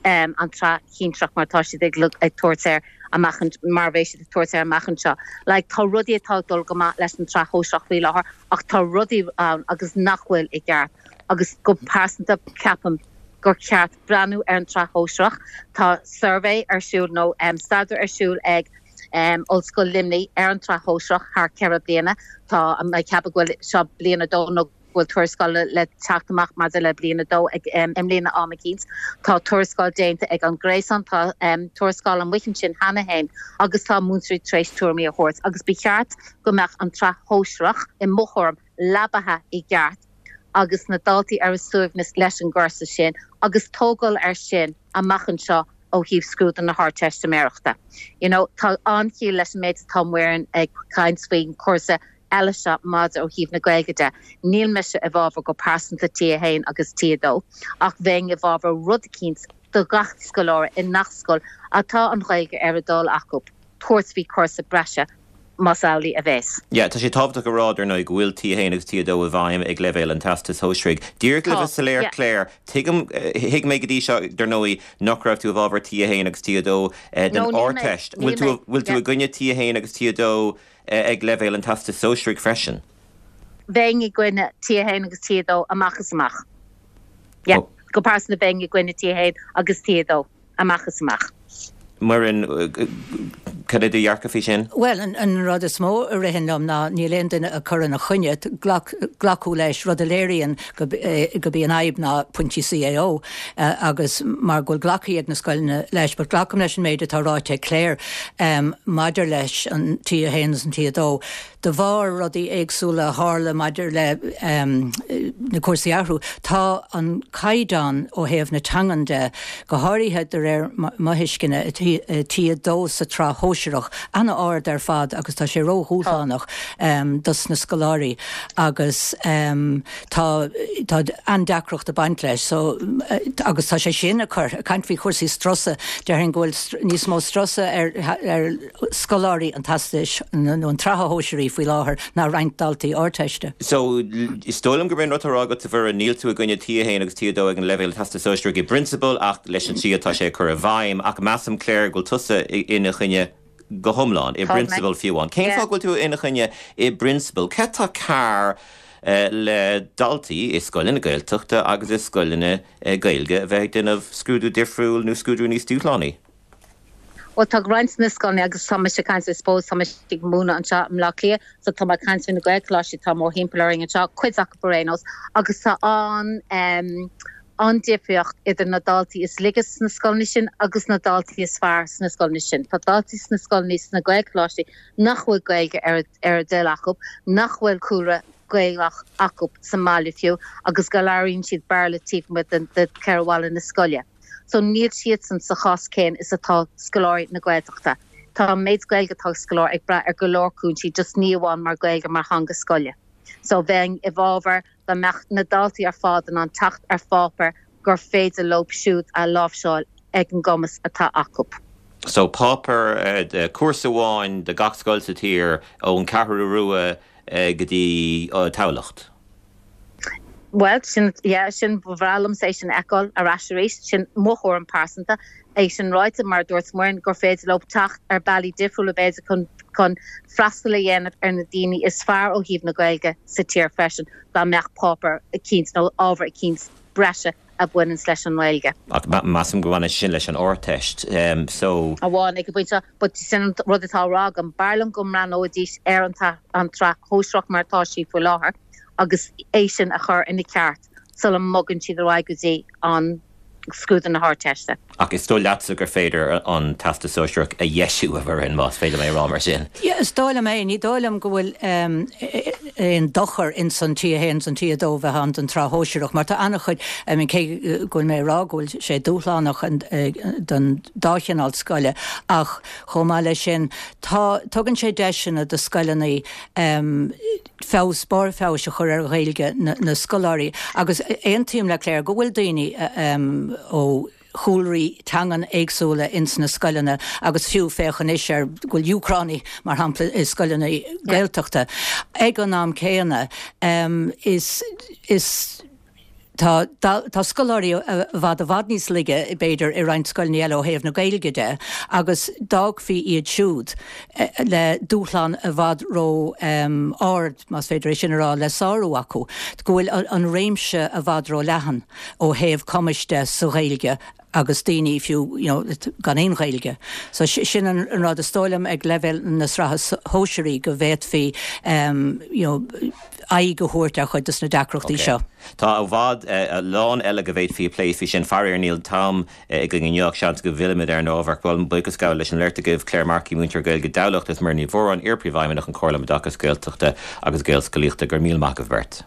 [SPEAKER 5] an tsraith shinsearach mar atá siad ag tabhairt air amach mar a bheidh siad ag tabhairt air amach anseo. Like tá rudaí atá ag dul go maith leis an tsraith shóisearach faoi láthair ach tá rudaí ann agus nach bhfuil i gceart agus go pearsanta ceapaim gur cheart breathnú ar an tsraith shóisearach. Tá suirbhé ar siúl nó staidéar ar siúl ag Ollscoil Luimnigh ar an tsraith shóisearach thar 4 bliana. Tá mé ag ceapadh go bhfuil seo bliain a dó nó go bhfuil tuarascáil le teacht amach maidir le bliain a dó ag i mbliana am eicínt. Tá tuarascáil déanta ag an Gréasán, tá tuarascáil amuigh ansin cheana féin agus tá múinteoirí tar éis tuairimí a thabhairt agus ba cheart go mbeadh an tsraith shóisearach, i mo thuairim, leabaithe i gceart agus na daltaí ar a suaimhneas leis an gcúrsa sin agus tógáil air sin amach anseo ó thaobh scrúdú na hArdteistiméireachta. You know, tá an-chiall leis an méid atá Muireann ag caint faoin chúrsa eile seo maidir ó thaobh na Gaeilge de. Níl mise i bhfabhar go pearsanta T1 agus T2 ach bheinn i bhfabhar rud eicínt do gach scoláire i ngach scoil atá an Ghaeilge ar a dtoil acu tabhairt faoi chúrsa breise más amhlaidh a bheas.
[SPEAKER 1] Yeah, tá sé tábhachtach a rá, dar ndóigh, go bhfuil T1 agus T2 i bhfeidhm ag leibhéal an Teastais Shóisearaigh. Díreach le bheith soiléir, yeah. Claire, tuigim, thuig mé go dtí seo, dar ndóigh, nach raibh tú i bhfabhar T1 agus T2 den No, níl mé. Ardteist. Níl Bhfuil tú, mé. bhfuil tú Yeah. i gcoinne T1 agus T2 ag leibhéal an Teastais Shóisearaigh freisin?
[SPEAKER 5] Bheinn i gcoinne T1 agus T2 amach is amach. Yeah. Oh. Go pearsanta bheinn i gcoinne T1 agus T2. amach is amach.
[SPEAKER 1] Muireann, cad é do dhearcadh faoi sin?
[SPEAKER 4] Bhuel, an rud is mó a ritheann liom ná níl aon duine ag cur ina choinne, glacadh leis, rud a léiríonn gurb í an fhadhb ná pointí CAO agus mar go bhfuil glactha ag na scoileanna leis. But glacaim leis an méid atá ráite ag Claire maidir leis an T1 agus an T2. De bharr rudaí éagsúla a tharla maidir le na cúrsaí a athrú, tá an caighdeán ó thaobh na teangan de, go háirithe de réir mo thuisceana, i T2 sa tsraith shóisearach, an-ard ar fad agus tá sé ró-dhúshlánach dos na scoláirí agus tá tá an-deacracht ag baint leis. So agus tá sé sin ag cur, ag caint faoi chúrsaí strusa, déarfainn go bhfuil níos mó strusa ar ar scoláirí an Teastais nó an tSraithe Shóisearaí faoi láthair ná roinnt daltaí Ardteiste.
[SPEAKER 1] So, is dóigh liom gurb é an rud atá á rá agat, a Mhuireann, níl tú i gcoinne T1 agus T2 ag an leibhéal Teastas Sóisearaigh i bprionsabal ach leis an tslí atá sé á cur i bhfeidhm. Ach measaim, Claire, go bhfuil tusa ina choinne go hiomlán, i bprionsabal fiú amháin. Cén fáth go bhfuil tú ina choinne i bprionsabal? Céard atá cearr le daltaí i scoileanna Gaeltachta agus i scoileanna Gaeilge a bheith ag déanamh scrúdú difriúil nó scrúdú níos dúshlánaí?
[SPEAKER 5] Bhuel, tá roinnt de na scoileanna, agus tá mise ag caint, I suppose, tá mise ag múineadh anseo i mBleá Cliath, so tá mé ag caint faoi na Gaelcholáistí atá mórthimpeall orainn anseo, cuid acu ar aon nós, agus tá an, em, an-difríocht idir na daltaí is laige sna scoileanna sin agus na daltaí is fearr sna scoileanna sin. Tá daltaí sna scoileanna, sna Gaelcholáistí nach bhfuil Gaeilge ar a, ar a dtoil acu, nach bhfuil cúlra Gaelach acu sa mbaile fiú, agus go labhraíonn siad Béarla taobh amuigh de, de cheithre bhalla na scoile. So níl siadsan sa chás céanna is atá scoláirí na Gaeltachta. Tá an méid Gaeilge atá ag scoláire ag brath ar go leor cúinsí, just ní amháin mar Gaeilge mar theanga scoile. So bheinn i bhfabhar dá mbeadh na daltaí ar fad in ann teacht ar pháipéar gur féidir leo siúd a láimhseáil ag an gcumas atá acu.
[SPEAKER 1] So páipéar, cúrsa amháin do gach scoil sa tír ón Cheathrú Rua go dtí Tamhlacht.
[SPEAKER 5] Bhuel, sin, yeah, sin, ba bhreá liomsa é sin a fheiceáil ar ais arís. Sin mo thuairim pearsanta. É sin ráite, mar a dúirt Muireann, gur féidir leo teacht ar bealaí difriúla b'fhéidir chun, chun freastal a dhéanamh ar na daoine is fearr ó thaobh na Gaeilge sa tír freisin, dá mbeadh páipéar eicínt nó ábhar eicínt breise a bhaineanns leis an nGaeilge.
[SPEAKER 1] Ach measaim go mbaineann sé sin leis an Ardteist, so.
[SPEAKER 5] Amháin ag an bpointe seo, but sin an rud atá á rá agam, b'fhearr liom go mbreathnóidís ar an an tsraith shóisearach mar atá sí faoi láthair agus é sin a chur ina ceart sula mbogann siad ar aghaidh go dtí an. scrúdú na hArdteiste.
[SPEAKER 1] Ach is dóigh leatsa gur féidir an Teastas Sóisearach a dheisiú, a Mhuireann, más féidir liom é a rá mar sin.
[SPEAKER 4] Yeah, is dóigh liom é. Ní dóigh liom go bhfuil aon dochar ins an T1 is an T2 bheith ann don tsraith shóisearach mar tá an-chuid, I mean cé go bhfuil mé ag rá go bhfuil sé dúshlánach don dá chineál scoile ach chomh maith leis sin tá, tugann sé deiseanna do scoileanna feabhas, barr feabhais a chur ar Ghaeilge na scoláirí agus aontaím le Claire go bhfuil daoine ó chúlraí teangan éagsúla ins na scoileanna agus fiú féach anois ar go bhfuil Úcránaigh mar shampla i scoileanna Gaeltachta. Ag an am céanna is is tá tá scoláirí i bhfad i bhfad níos laige b'fhéidir i roinnt scoileanna eile ó thaobh na Gaeilge de agus d'fhágfaí iad siúd le dúshlán i bhfad ró ard, más féidir é sin a rá, le sárú acu, go bhfuil an réimse i bhfad ró leathan. ó thaobh cumais de sa Ghaeilge agus daoine fiú you know gan aon Ghaeilge. So sin an rud is dóigh liom ag leibhéal na sraithe sóisearaí go bhféadfaí you know aghaidh a thabhairt ar chuid de na deacrachtaí seo.
[SPEAKER 1] Tá i bhfad a lán eile go bhféadfaí a phlé faoi sin. Faraor níl an t-am againn inniu ach seans go bhfillfimid ar an ábhar. Ach bhuel, buíochas a ghabháil leis an mbeirt agaibh, Claire Markey, múinteoir Gaeilge i dTamhlacht, agus Muireann Ní Mhóráin, iar-Phríomhfheidhmeannach an Chomhairle um Oideachas Gaeltachta agus Gaelscolaíochta. Go raibh míle maith agaibh beirt.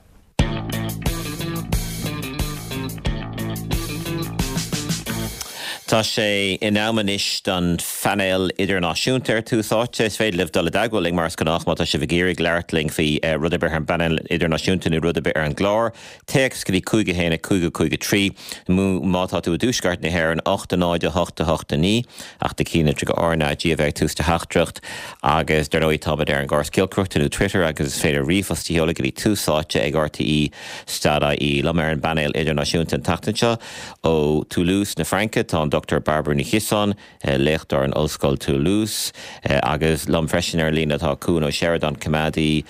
[SPEAKER 1] Tá sé in am anois don phainéal idirnáisiúnta ar Tús Áite. Is féidir libh dul i dteagmháil linn mar is gnách má tá sibh ag iarraidh labhairt linn faoi rud ar bith ar an bpainéal idirnáisiúnta nó rud ar bith ar an gclár. Téacs go dtí 5 1 5 5 3 nó má tá tú i dtuaisceart na hÉireann 8 0 8 8 9 ach do chinnlitriú go RnaG a bheith ag tús do theachtaireacht. Agus dar ndóigh táimid ar an gcóras giolcaireachta nó Twitter agus is féidir ríomhphost a sheoladh go dtí Tús Áite ag RTÉ dot ie. Liom ar an bpainéal idirnáisiúnta an tseachtain seo ó Toulouse na Fraince tá an Dr Bairbre Ní Chiosáin, léachtóir in Ollscoil Toulouse, agus liom freisin ar an líne tá Cuan Ó Seireadáin, coimeádaí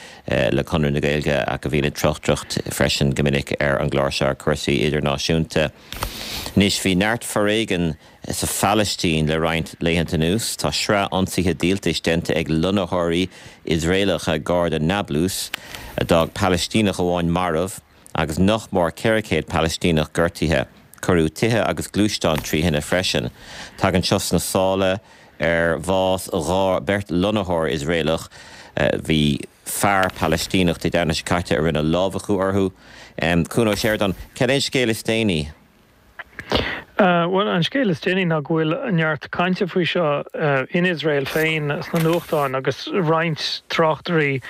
[SPEAKER 1] le Conradh na Gaeilge ach a bhíonn ag tráchtaireacht freisin go minic ar an gclár seo ar chúrsaí idirnáisiúnta. Anois bhí neart foréigin Sa Phalaistín le roinnt laethanta anuas, tá sraith ionsaithe díoltais déanta ag lonnaitheoirí Iosraelacha gar do Nablus, a d'fhág Palaistíneach amháin marbh agus nach mór 400 Palaistíneach gortaithe. Cuireadh tithe agus gluaisteáin trí thine freisin. Tagann seo sna sála ar bhás 2 beirt lonnaitheoir Iosraelach. Bhí fear Palaistíneach Dé Domhnaigh seo caite a rinne lámhachú orthu. Cuan Ó Seireadáin, cad é an scéal is déanaí?
[SPEAKER 6] Bhuel, an scéal is déanaí ná go bhfuil neart cainte faoi seo in Iosrael féin sna nuachtáin agus roinnt tráchtairí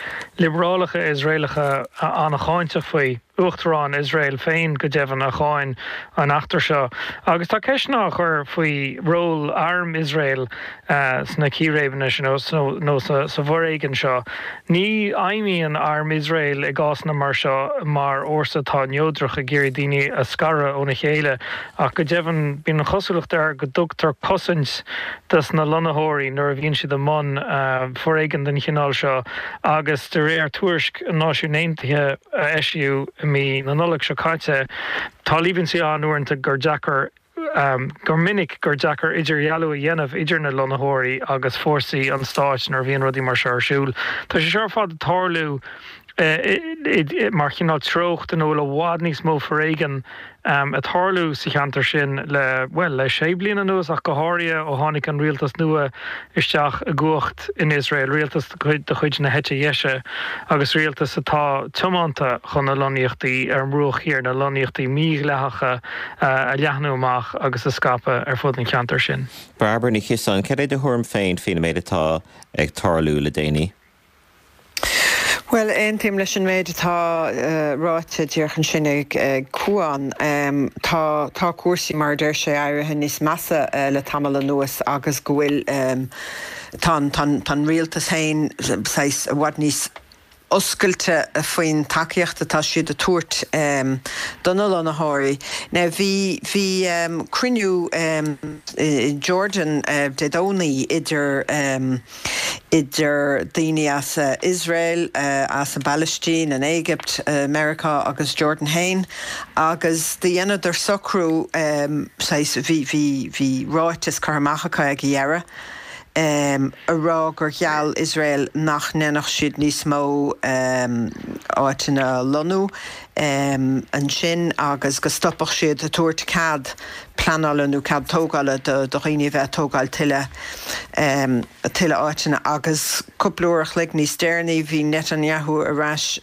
[SPEAKER 6] liobrálacha Iosraelacha an-cháinteach faoi. Uachtarán Iosrael féin, go deimhin, a cháin an eachtra seo. Agus tá ceisteanna á chur faoi ról arm Iosrael sna círéibeanna sin nó sa bhforéigean seo. Ní fheidhmíonn arm Iosrael i gcásanna mar seo mar fhórsa atá neodrach ag iarraidh daoine a scaradh óna chéile ach go deimhin bíonn an chosúlacht air go dtugtar cosaint dos na lonnaitheoirí nuair a bhíonn siad i mbun foréigean den chineál seo agus de réir tuairisc na Náisiún Aontaithe a eisíodh i mí na Nollag seo caite tá líomhaintí ann uaireanta gur deacair gur minic gur deacair idirdhealú a dhéanamh idir na lonnaitheoirí agus fórsaí an stáit nuair a bhíonn rudaí mar seo ar siúl. Tá sé seo ar fad ag tarlú mar chineál treocht ina bhfuil i bhfad níos mó foréigean ag tarlú sa cheantar sin le, bhuel, le sé bliana anuas ach go háirithe ó tháinig an rialtas nua isteach i gcumhacht in Iosrael, rialtas de chuid na heite dheise agus rialtas atá tiomanta chun na lonnaíochtaí ar an mBruach Thiar, na lonnaíochtaí mídhleathacha a leathnú amach agus a scaipeadh ar fud an cheantair sin.
[SPEAKER 1] Bairbre Ní Chiosáin, cad é do thuairim féin faoin méid atá ag tarlú le déanaí?
[SPEAKER 7] Bhuel, aontaím leis an méid atá ráite díreach ansin ag Cuan. Tá, tá cúrsaí, mar a deir sé, éirithe níos measa le tamall anuas agus go bhfuil, tá an, tá an, tá an rialtas féin saghas i bhfad níos oscailte faoin tacaíocht atá siad a tabhairt do na lonnaitheoirí. Now bhí, bhí cruinniú i Jordan Dé Domhnaigh idir, idir daoine as Iosrael, as an bPalaistín, an Éigipt, Meiriceá agus Jordan féin agus do dheineadar socrú saghas, bhí, bhí, bhí ráiteas curtha amach acu ag a dheireadh a rá gur gheall Iosrael nach ndéanfadh siad níos mó áiteanna a lonnú. ansin agus go stopfadh siad ag tabhairt cead pleanála nó cead tógála do dhaoine a bheith ag tógáil tuilleadh tuilleadh áiteanna. Agus cúpla uair a chloig níos deireanaí bhí Netanyahu ar ais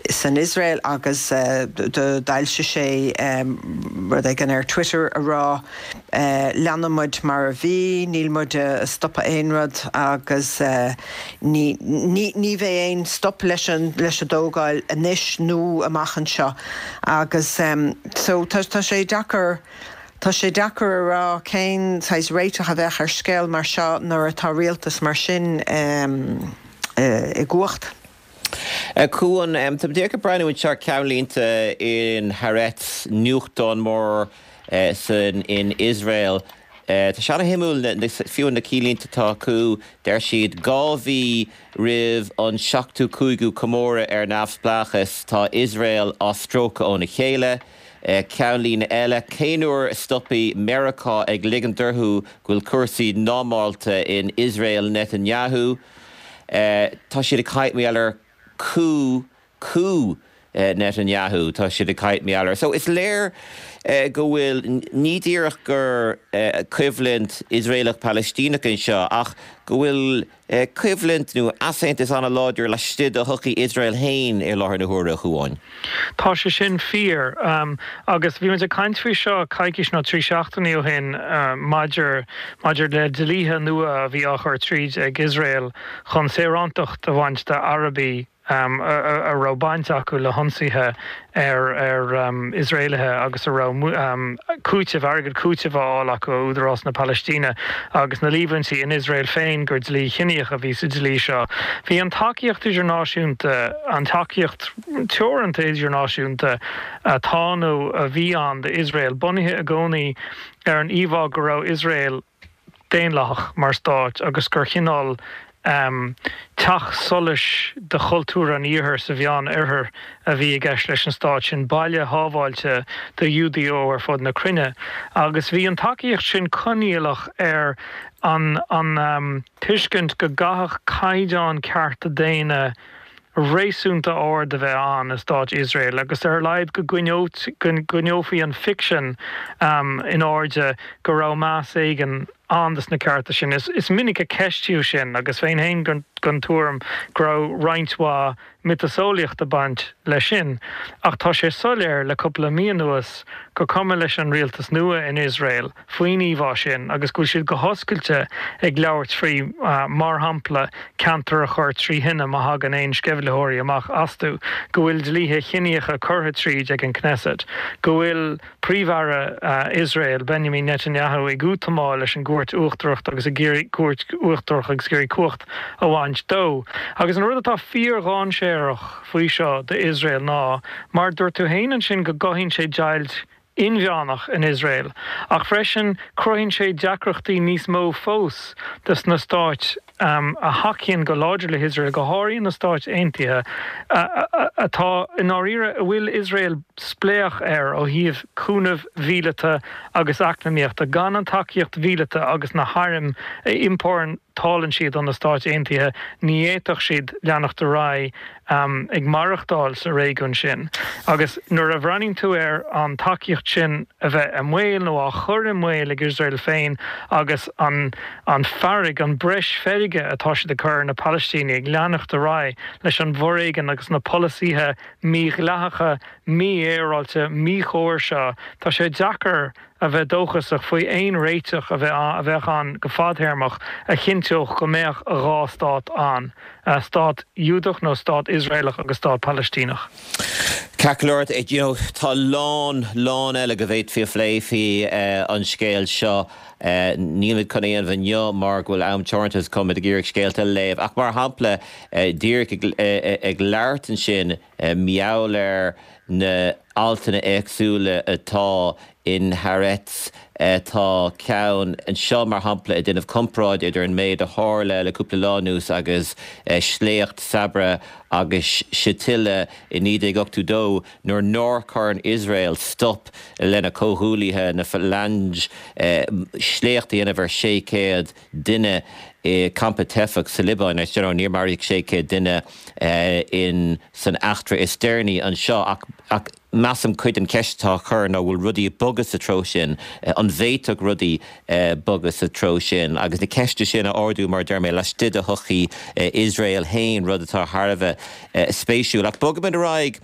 [SPEAKER 7] san Iosrael agus d'fhoilsigh sé rud éigin ar Twitter a rá leanfaidh muid mar a bhí, níl muid ag stopadh aon rud agus Ní, ní, ní bheidh aon stop leis an, leis an dtógáil anois nó amach anseo agus so tá, tá sé deacair, tá sé deacair a rá cén saghas réiteach a bheadh ar scéal mar seo nuair atá rialtas mar sin i gcumhacht.
[SPEAKER 1] A Chuáin, tá mé díreach ag breathnú anseo ar ceannlínte in Haaretz, nuachtán mór san, in Iosrael. Tá sé ana-shuimiúil, fiú na cinnlínte atá acu, deir siad, 2 mhí roimh an seachtú cúigiú comóradh ar neamhspleáchas, tá Iosrael á stróiceadh óna chéile. Ceannlíne eile, cén uair a stopfaidh Meiriceá ag ligint orthu go bhfuil cúrsaí normálta in Iosrael Netanyahu? Tá siad ag caint mar gheall ar coup coup Netanyahu, tá siad ag caint mar gheall air. So is léir go bhfuil, ní díreach gur coimhlint Iosraelach-Palaistíneach anseo ach go bhfuil coimhlint nó easaontas an-láidir laistigh de shochaí Iosrael féin i láthair na huaire, a Chuáin.
[SPEAKER 6] Tá sé sin fíor. Agus bhí muid ag caint faoi seo coicís nó 3 seachtainí ó shin maidir maidir le dlíthe nua a bhí á chur tríd ag Iosrael chun saorántacht a bhaint d'Arabaigh a raibh baint acu le hionsaithe ar Iosraelaithe agus a raibh cúiteamh, airgead cúitimh á fháil acu ó Údarás na Palaistíne agus na líomhaintí in Iosrael féin gur dlí chiníoch a bhí sa dlí seo. Bhí an tacaíocht idirnáisiúnta, an tacaíocht teoranta idirnáisiúnta atá nó a bhí ann d'Iosrael, bunaithe i gcónaí ar an íomhá go raibh Iosrael, daonlathach mar stát agus gur chineál teach solais de chultúr an Iarthair sa Mheán-Oirthear a bhí i gceist leis an stát sin, baile shábháilte do Ghiúdaigh ó ar fud na cruinne. Agus bhí an tacaíocht sin coinníollach ar an an tuiscint go gcaithfeadh caighdeán cearta daonna réasúnta ard a bheith ann i Stát Iosrael agus ar a laghad go gcoinneofaí an ficsean in airde go raibh meas éigin ann dos na cearta sin. Is minic a ceistíodh sin agus bheinn féin den tuairim go raibh roinnt mhaith miotaseolaíocht ag baint leis sin. Ach tá sé soiléir le cúpla mí anuas gur cuma leis an rialtas nua in Iosrael faoin íomhá sin agus go bhfuil siad go hoscailte ag labhairt faoi, mar shampla, ceantar a chur trí thine má thagann aon sceimhlitheoirí amach astu, go bhfuil dlíthe chiníocha curtha tríd ag an Knesset, go bhfuil Príomh-Aire Iosrael, Benjamin Netanyahu, ag útamáil leis an gCúirt Uachtarach agus ag iarraidh Cúirt Uachtarach agus ag iarraidh cumhacht a bhaint dó. Agus an rud atá fíordhainséarach faoi seo d'Iosrael ná, mar a dúirt tú féin ansin, go gcothaíonn sé deighilt inmheánach in Iosrael, ach freisin cruthaíonn sé deacrachtaí níos mó fós dos na stáit a thacaíonn go láidir le hIosrael, go háirithe na Stáit Aontaithe, atá i ndáiríre, a bhfuil Iosrael spléach air ó thaobh cúnamh mhíleata agus eacnamaíochta. Gan an tacaíocht mhíleata agus na hairm a iompórtálann siad ó na Stáit Aontaithe, ní fhéadfadh siad leanacht ar aghaidh ag maireachtáil sa réigiún sin. Agus nuair a bhreathnaíonn tú ar an tacaíocht sin a bheith i mbaol nó á chur i mbaol ag Iosrael féin agus an an fearg, an breis feirge atá siad ag cur ar na Palaistínigh ag leanacht ar aghaidh leis an bhforéigean agus na polasaithe mídhleathacha, mífhéaráilte, míchóir seo, tá sé deacair a bheith dóchasach faoi aon réiteach a bheadh ann go fadthéarmach a chinnteodh go mbeadh 2 stát ann, stát Iúdach nó stát Iosraelach agus stát Palaistíneach.
[SPEAKER 1] Ceart go leor, you know, tá a lán, lán eile go bhféadfaí a phlé faoi an scéal seo. Nílimid chun é a dhéanamh inniu mar go bhfuil am teoranta agus táimid ag iarraidh scéalta a léamh. Ach mar shampla, díreach ag labhairt ansin mar gheall ar na altanna éagsúla atá in Haaretz. Tá ceann anseo, mar shampla, ag déanamh comparáid idir an méid a tharla le cúpla lá anuas agus sléacht Sabra agus Shatila i 1982 nuair nár chuir Iosrael stop lena comhghuaillithe, na Phalange. sléacht a dhéanamh ar 600 duine i campa teifeach sa Liobáin. Is you know níor maraíodh 600 duine in san eachtra is deireanaí anseo ach ach measaim cuid den cheist atá á chur ná bhfuil rudaí ag bogadh sa treo sin, an bhféadfadh rudaí bogadh sa treo sin agus na ceiste sin a ardú mar a deir mé laistigh de shochaí Iosrael féin, rud atá thar a bheith spéisiúil. Ach bogfaimid ar aghaidh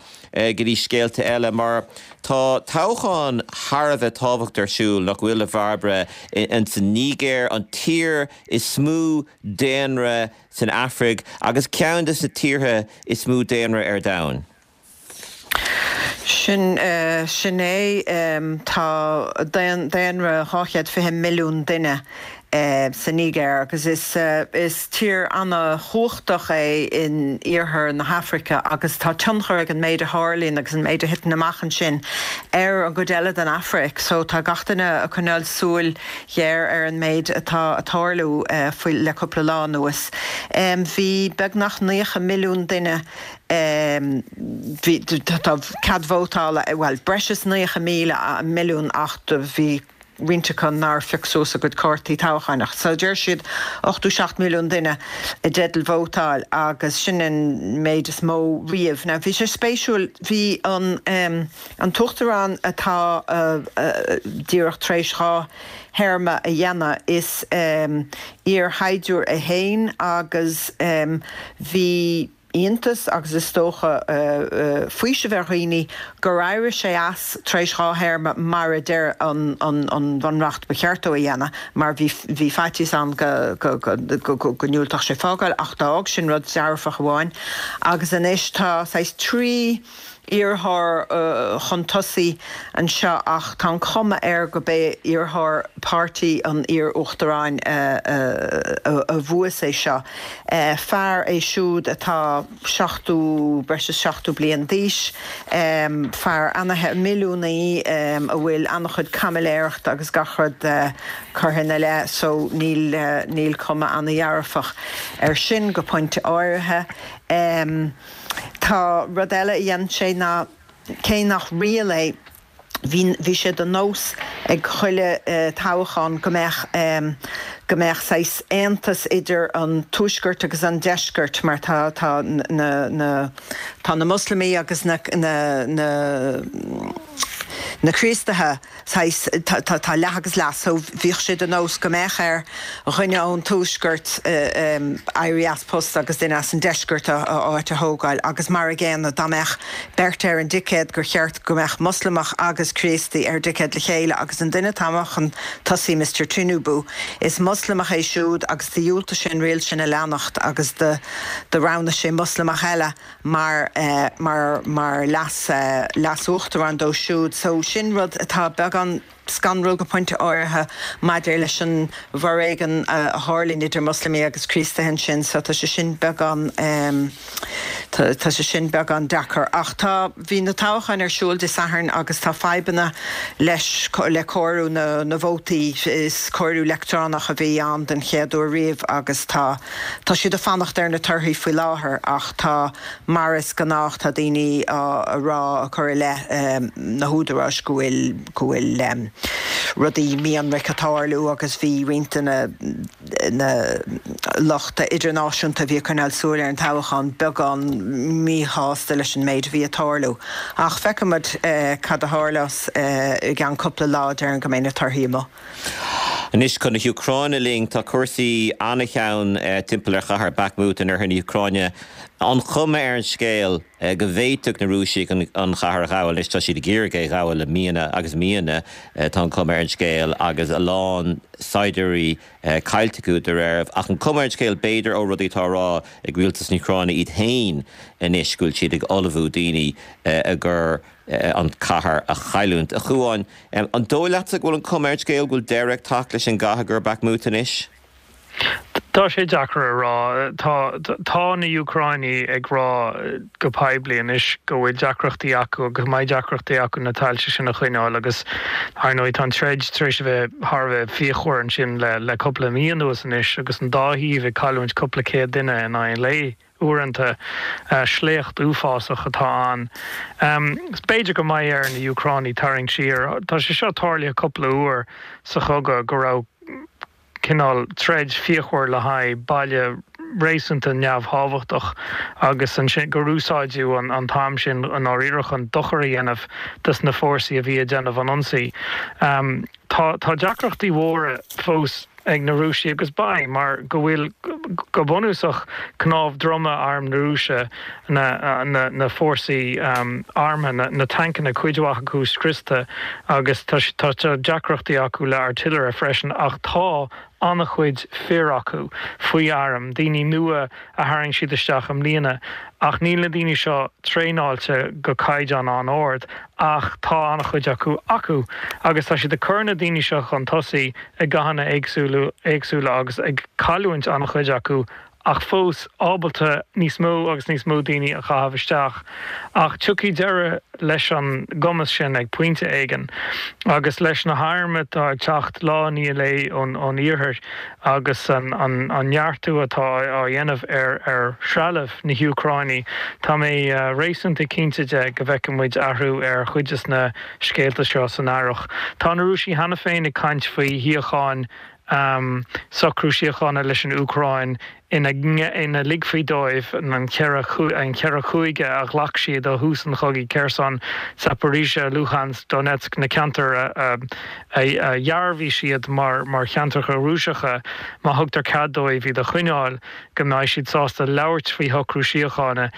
[SPEAKER 1] go dtí scéalta eile mar tá toghchán thar a bheith tábhachtach ar siúl, nach bhfuil, a Bhairbre, ins an Nigéir, an tír is mó daonra san Afraic agus ceann de na tíortha is mó daonra ar domhan.
[SPEAKER 7] Sin, sin é. Tá daonra 220 milliún duine sa Nigéir agus is, is tír ana-chumhachtach é in iarthar na hAfraice agus tá tionchar ag an méid a tharlaíonn agus an méid a thiteann amach ansin ar an gcuid eile den Afraic. So tá gach duine ag coinneáil súil ghéar ar an méid atá ag tarlú faoi, le cúpla lá anuas. Bhí beagnach 90 milliún duine Bhí, tá cead vótála, bhuel, breis is 90,000, milliún ach do bhí roinnt acu nár phioc suas a gcuid cártaí toghcháin ach so deir siad 87 milliún duine i dteideal vótáil agus sin an méid is mó riamh. Now bhí sé spéisiúil, bhí an an t-uachtarán atá díreach tar éis 2 théarma a dhéanamh, is iar-shaighdiúir é féin agus bhí iontas agus is dócha faoiseamh ar dhaoine gur éirigh sé as tar éis 2 théarma mar a deir an Bhunreacht ba cheart dó a dhéanamh mar bhí bhí faitíos ann go go ndiúltódh sé fágáil ach d'fhág sin rud dearfach amháin agus anois tá saghas 3 iarrthóir chun tosaigh anseo ach tá an chuma air go b'é iarrthóir páirtí an iar-uachtaráin a bhuas é seo. Fear é siúd atá 70, breis is 70 bliain d'aois, fear ana, milliúnaí a bhfuil an-chuid caimiléireachta agus gach rud curtha ina leith so níl, níl cuma ana-dhearfach air sin go pointe áirithe. Tá rud eile a dhein sé ná, cé nach riail é, bhí, bhí sé de nós ag chuile toghchán go mbeadh, go mbeadh saghas aontas idir an tuaisceart agus an deisceart mar tá, tá na, na, tá na Moslamaigh agus na, na, na, na Críostaithe, saghas, tá leath agus leath, so bhíodh sé de nós go mbeadh ar dhuine ón tuaisceart éirí as post agus duine as an deisceart a áit a thógáil agus mar a gcéanna dá mbeadh beirt ar an dticéad gur cheart go mbeadh Moslamach agus Críostaí ar dticéad le chéile agus an duine atá amach chun tosaigh Mister Tinubu is Moslamach é siúd agus do dhiúltaigh sé an riail sin a leanacht agus do roghnaigh sé Moslamach eile mar mar mar leas leas-uachtarán dó siúd. So sin rud atá beagán scanrúil go pointe áirithe maidir leis an bhforéigean a tharlaíonn idir Moslamaigh agus Críostaithe ansin. So tá sé sin beagán tá tá sé sin beagán deacair. Ach tá bhí na toghcháin ar siúl Dé Sathairn agus tá fadhbanna leis le comhaireamh na na vótaí. Is comhaireamh leictreonach a bhí ann den chéad uair riamh agus tá Tá siad ag fanacht ar na torthaí faoi láthair ach tá, mar is gnách, tá daoine á rá, ag cur i leith na húdaráis go bhfuil, go bhfuil rudaí mí-ionraic ag tarlú agus bhí roinnt de na, na lucht idirnáisiúnta a bhí ag coinneáil súil ar an toghchán beagán míshásta leis an méid a bhí ag tarlú. Ach feicfimid cad a tharlós i gceann cúpla lá, déarfainn go mbeidh na torthaí amuigh.
[SPEAKER 1] Anois chun na hÚcráine linn. Tá cúrsaí an-teann timpeall ar chathair Bakhmut in oirthear na hÚcráine. An chuma ar an scéal go bhféadfadh na Rúisigh an chathair a ghabháil. Anois tá siad ag iarraidh é a ghabháil le míonna agus míonna, tá an chuma ar an scéal, agus a lán saighdiúirí caillte acu dá réir. Ach an chuma ar an scéal, b'fhéidir, ó rudaí atá á rá ag rialtas na hÚcráine iad féin anois, go bhfuil siad ag ullmhú daoine i gcomhair an chathair a chailliúint. A Chuáin, an dóigh leatsa go bhfuil an chuma ar an scéal go bhfuil deireadh ag teacht leis an gcath i gcomhair Bakhmut anois?
[SPEAKER 6] Tá sé deacair a rá. Tá tá na Úcráinigh ag rá go poiblí anois go bhfuil deacrachtaí acu agus go mbeidh deacrachtaí acu na tailte sin a choinneáil agus ar ndóigh tá an troid tar éis a bheith thar a bheith fíochmhar ansin le le cúpla mí anuas anois agus an dá thaobh ag cailliúint cúpla céad duine in aghaidh an lae. Uaireanta, sléacht uafásach atá ann. B'fhéidir go mbeidh ar na Úcránaigh tarraingt siar. Tá sé seo tarlaithe cúpla uair sa chogadh go raibh. cineál troid fíochmhar le haghaidh baile réasúnta neamhthábhachtach agus ansin gur úsáideadh an t-am sin i ndáiríre chun dochar a dhéanamh dos na fórsaí a bhí ag déanamh an ionsaí. Tá tá deacrachtaí mhóra fós ag na Rúisigh agus beidh mar go bhfuil go bunúsach cnámh droma arm na Rúise, na na na fórsaí armtha, na na tancanna, cuid mhaith acu scriosta agus tá tá deacrachtaí acu le artillery freisin ach tá an-chuid fir acu faoi airm, daoine nua a tharraing siad isteach i mbliana, ach níl na daoine seo traenáilte go caighdeán an-ard, ach tá an-chuid acu acu agus tá siad ag cur na daoine seo chun tosaigh i gcathanna éagsúla agus ag cailliúint an-chuid acu ach fós ábalta níos mó agus níos mó daoine a chaitheamh isteach. Ach tiocfaidh deireadh leis an gcumas sin ag pointe éigin. Agus leis na hairm atá ag teacht lá i ndiaidh lae ón iarthar agus an neartú atá á dhéanamh ar threalamh na hÚcráine, tá mé réasúnta cinnte de go bhfeicfidh muid athrú ar chuid de na scéalta seo san earrach. Tá na Rúisigh cheana féin ag caint faoi shíocháin socrú síochána leis an Úcráin ina ina ligfí dóibh an cheithre an cheithre chúige a ghlac siad ó thús an chogaidh, Kherson, Zaporizhzhia, Luhansk, Donetsk, na ceantair a a dhearbhaigh siad mar mar cheantracha Rúiseacha, má thugtar cead dóibh iad a choinneáil. go mbeidh siad sásta labhairt faoi shocrú síochána.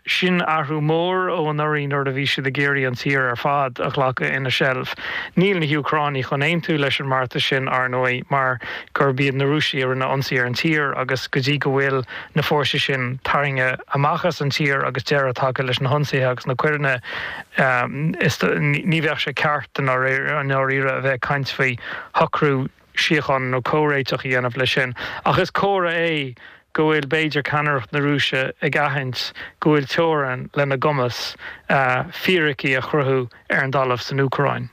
[SPEAKER 6] Sin athrú mór ó anuraidh nuair a bhí siad ag iarraidh an tír ar fad a ghlacadh ina seilbh. Níl na hÚcránaigh chun aontú leis an mbeartas sin, ar ndóigh, mar gurb iad na Rúisigh a rinne ionsaí ar an tír agus go dtí go bhfuil na fórsaí sin tarraingthe amach as an tír agus deireadh tagtha leis na hionsaithe agus na coireanna, ní bheadh sé ceart i ndáiríre a bheith ag caint faoi shocrú síochána nó comhréiteach a dhéanamh leis sin. Ach is comhartha é go bhfuil b'fhéidir ceannaireacht na Rúise ag aithint go bhfuil teorainn lena gcumas fíricí a chruthú ar an dtalamh san Úcráin.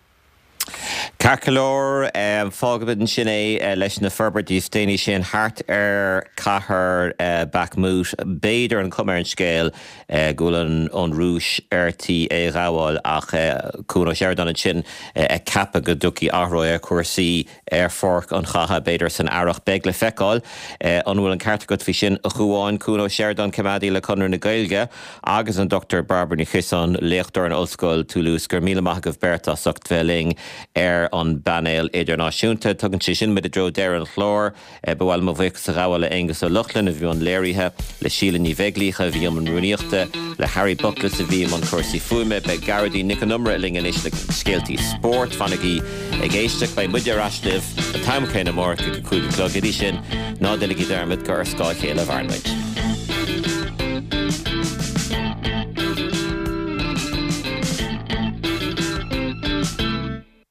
[SPEAKER 1] Ceart go leor, fágfaimid ansin é leis na forbairtí is déanaí sin thart ar cathair Bakhmut. B'fhéidir an chuma ar an scéal go bhfuil an Rúis ar tí é a ghabháil ach Cuan Ó Seireadáin ansin ag ceapadh go dtiocfaidh athrú ar chúrsaí ar pháirc an chatha, b'fhéidir san earrach. Beidh le feiceáil an bhfuil an ceart agat faoi sin, a Chuáin. Cuan Ó Seireadáin, coimeádaí le Conradh na Gaeilge agus an Dr Bairbre Ní Chiosáin, léachtóir in Ollscoil Toulouse. Go raibh míle maith agaibh beirt as ucht bheith linn ar an bpainéal idirnáisiúnta. Tugann sé sin muid i dtreo deireadh an chláir. Ba mhaith liom mo bhuíochas a ghabháil le Aonghus Ó Lochlainn a bhí i mbun léirithe, le Síle Ní Bheaglaoich a bhí i mbun rúnaíochta, le Harry Buckless a bhí i mbun cúrsaí fuaime. Beidh Gearóidín Nic Con Iomaire linn anois le scéaltaí spóirt. Fanaigí ag éisteacht, beidh muide ar ais libh an t-am céanna amárach ag a 5 a chlog. Go dtí sin, ná déanaigí dearmad gur ar scáth a chéile a mhaireann muid.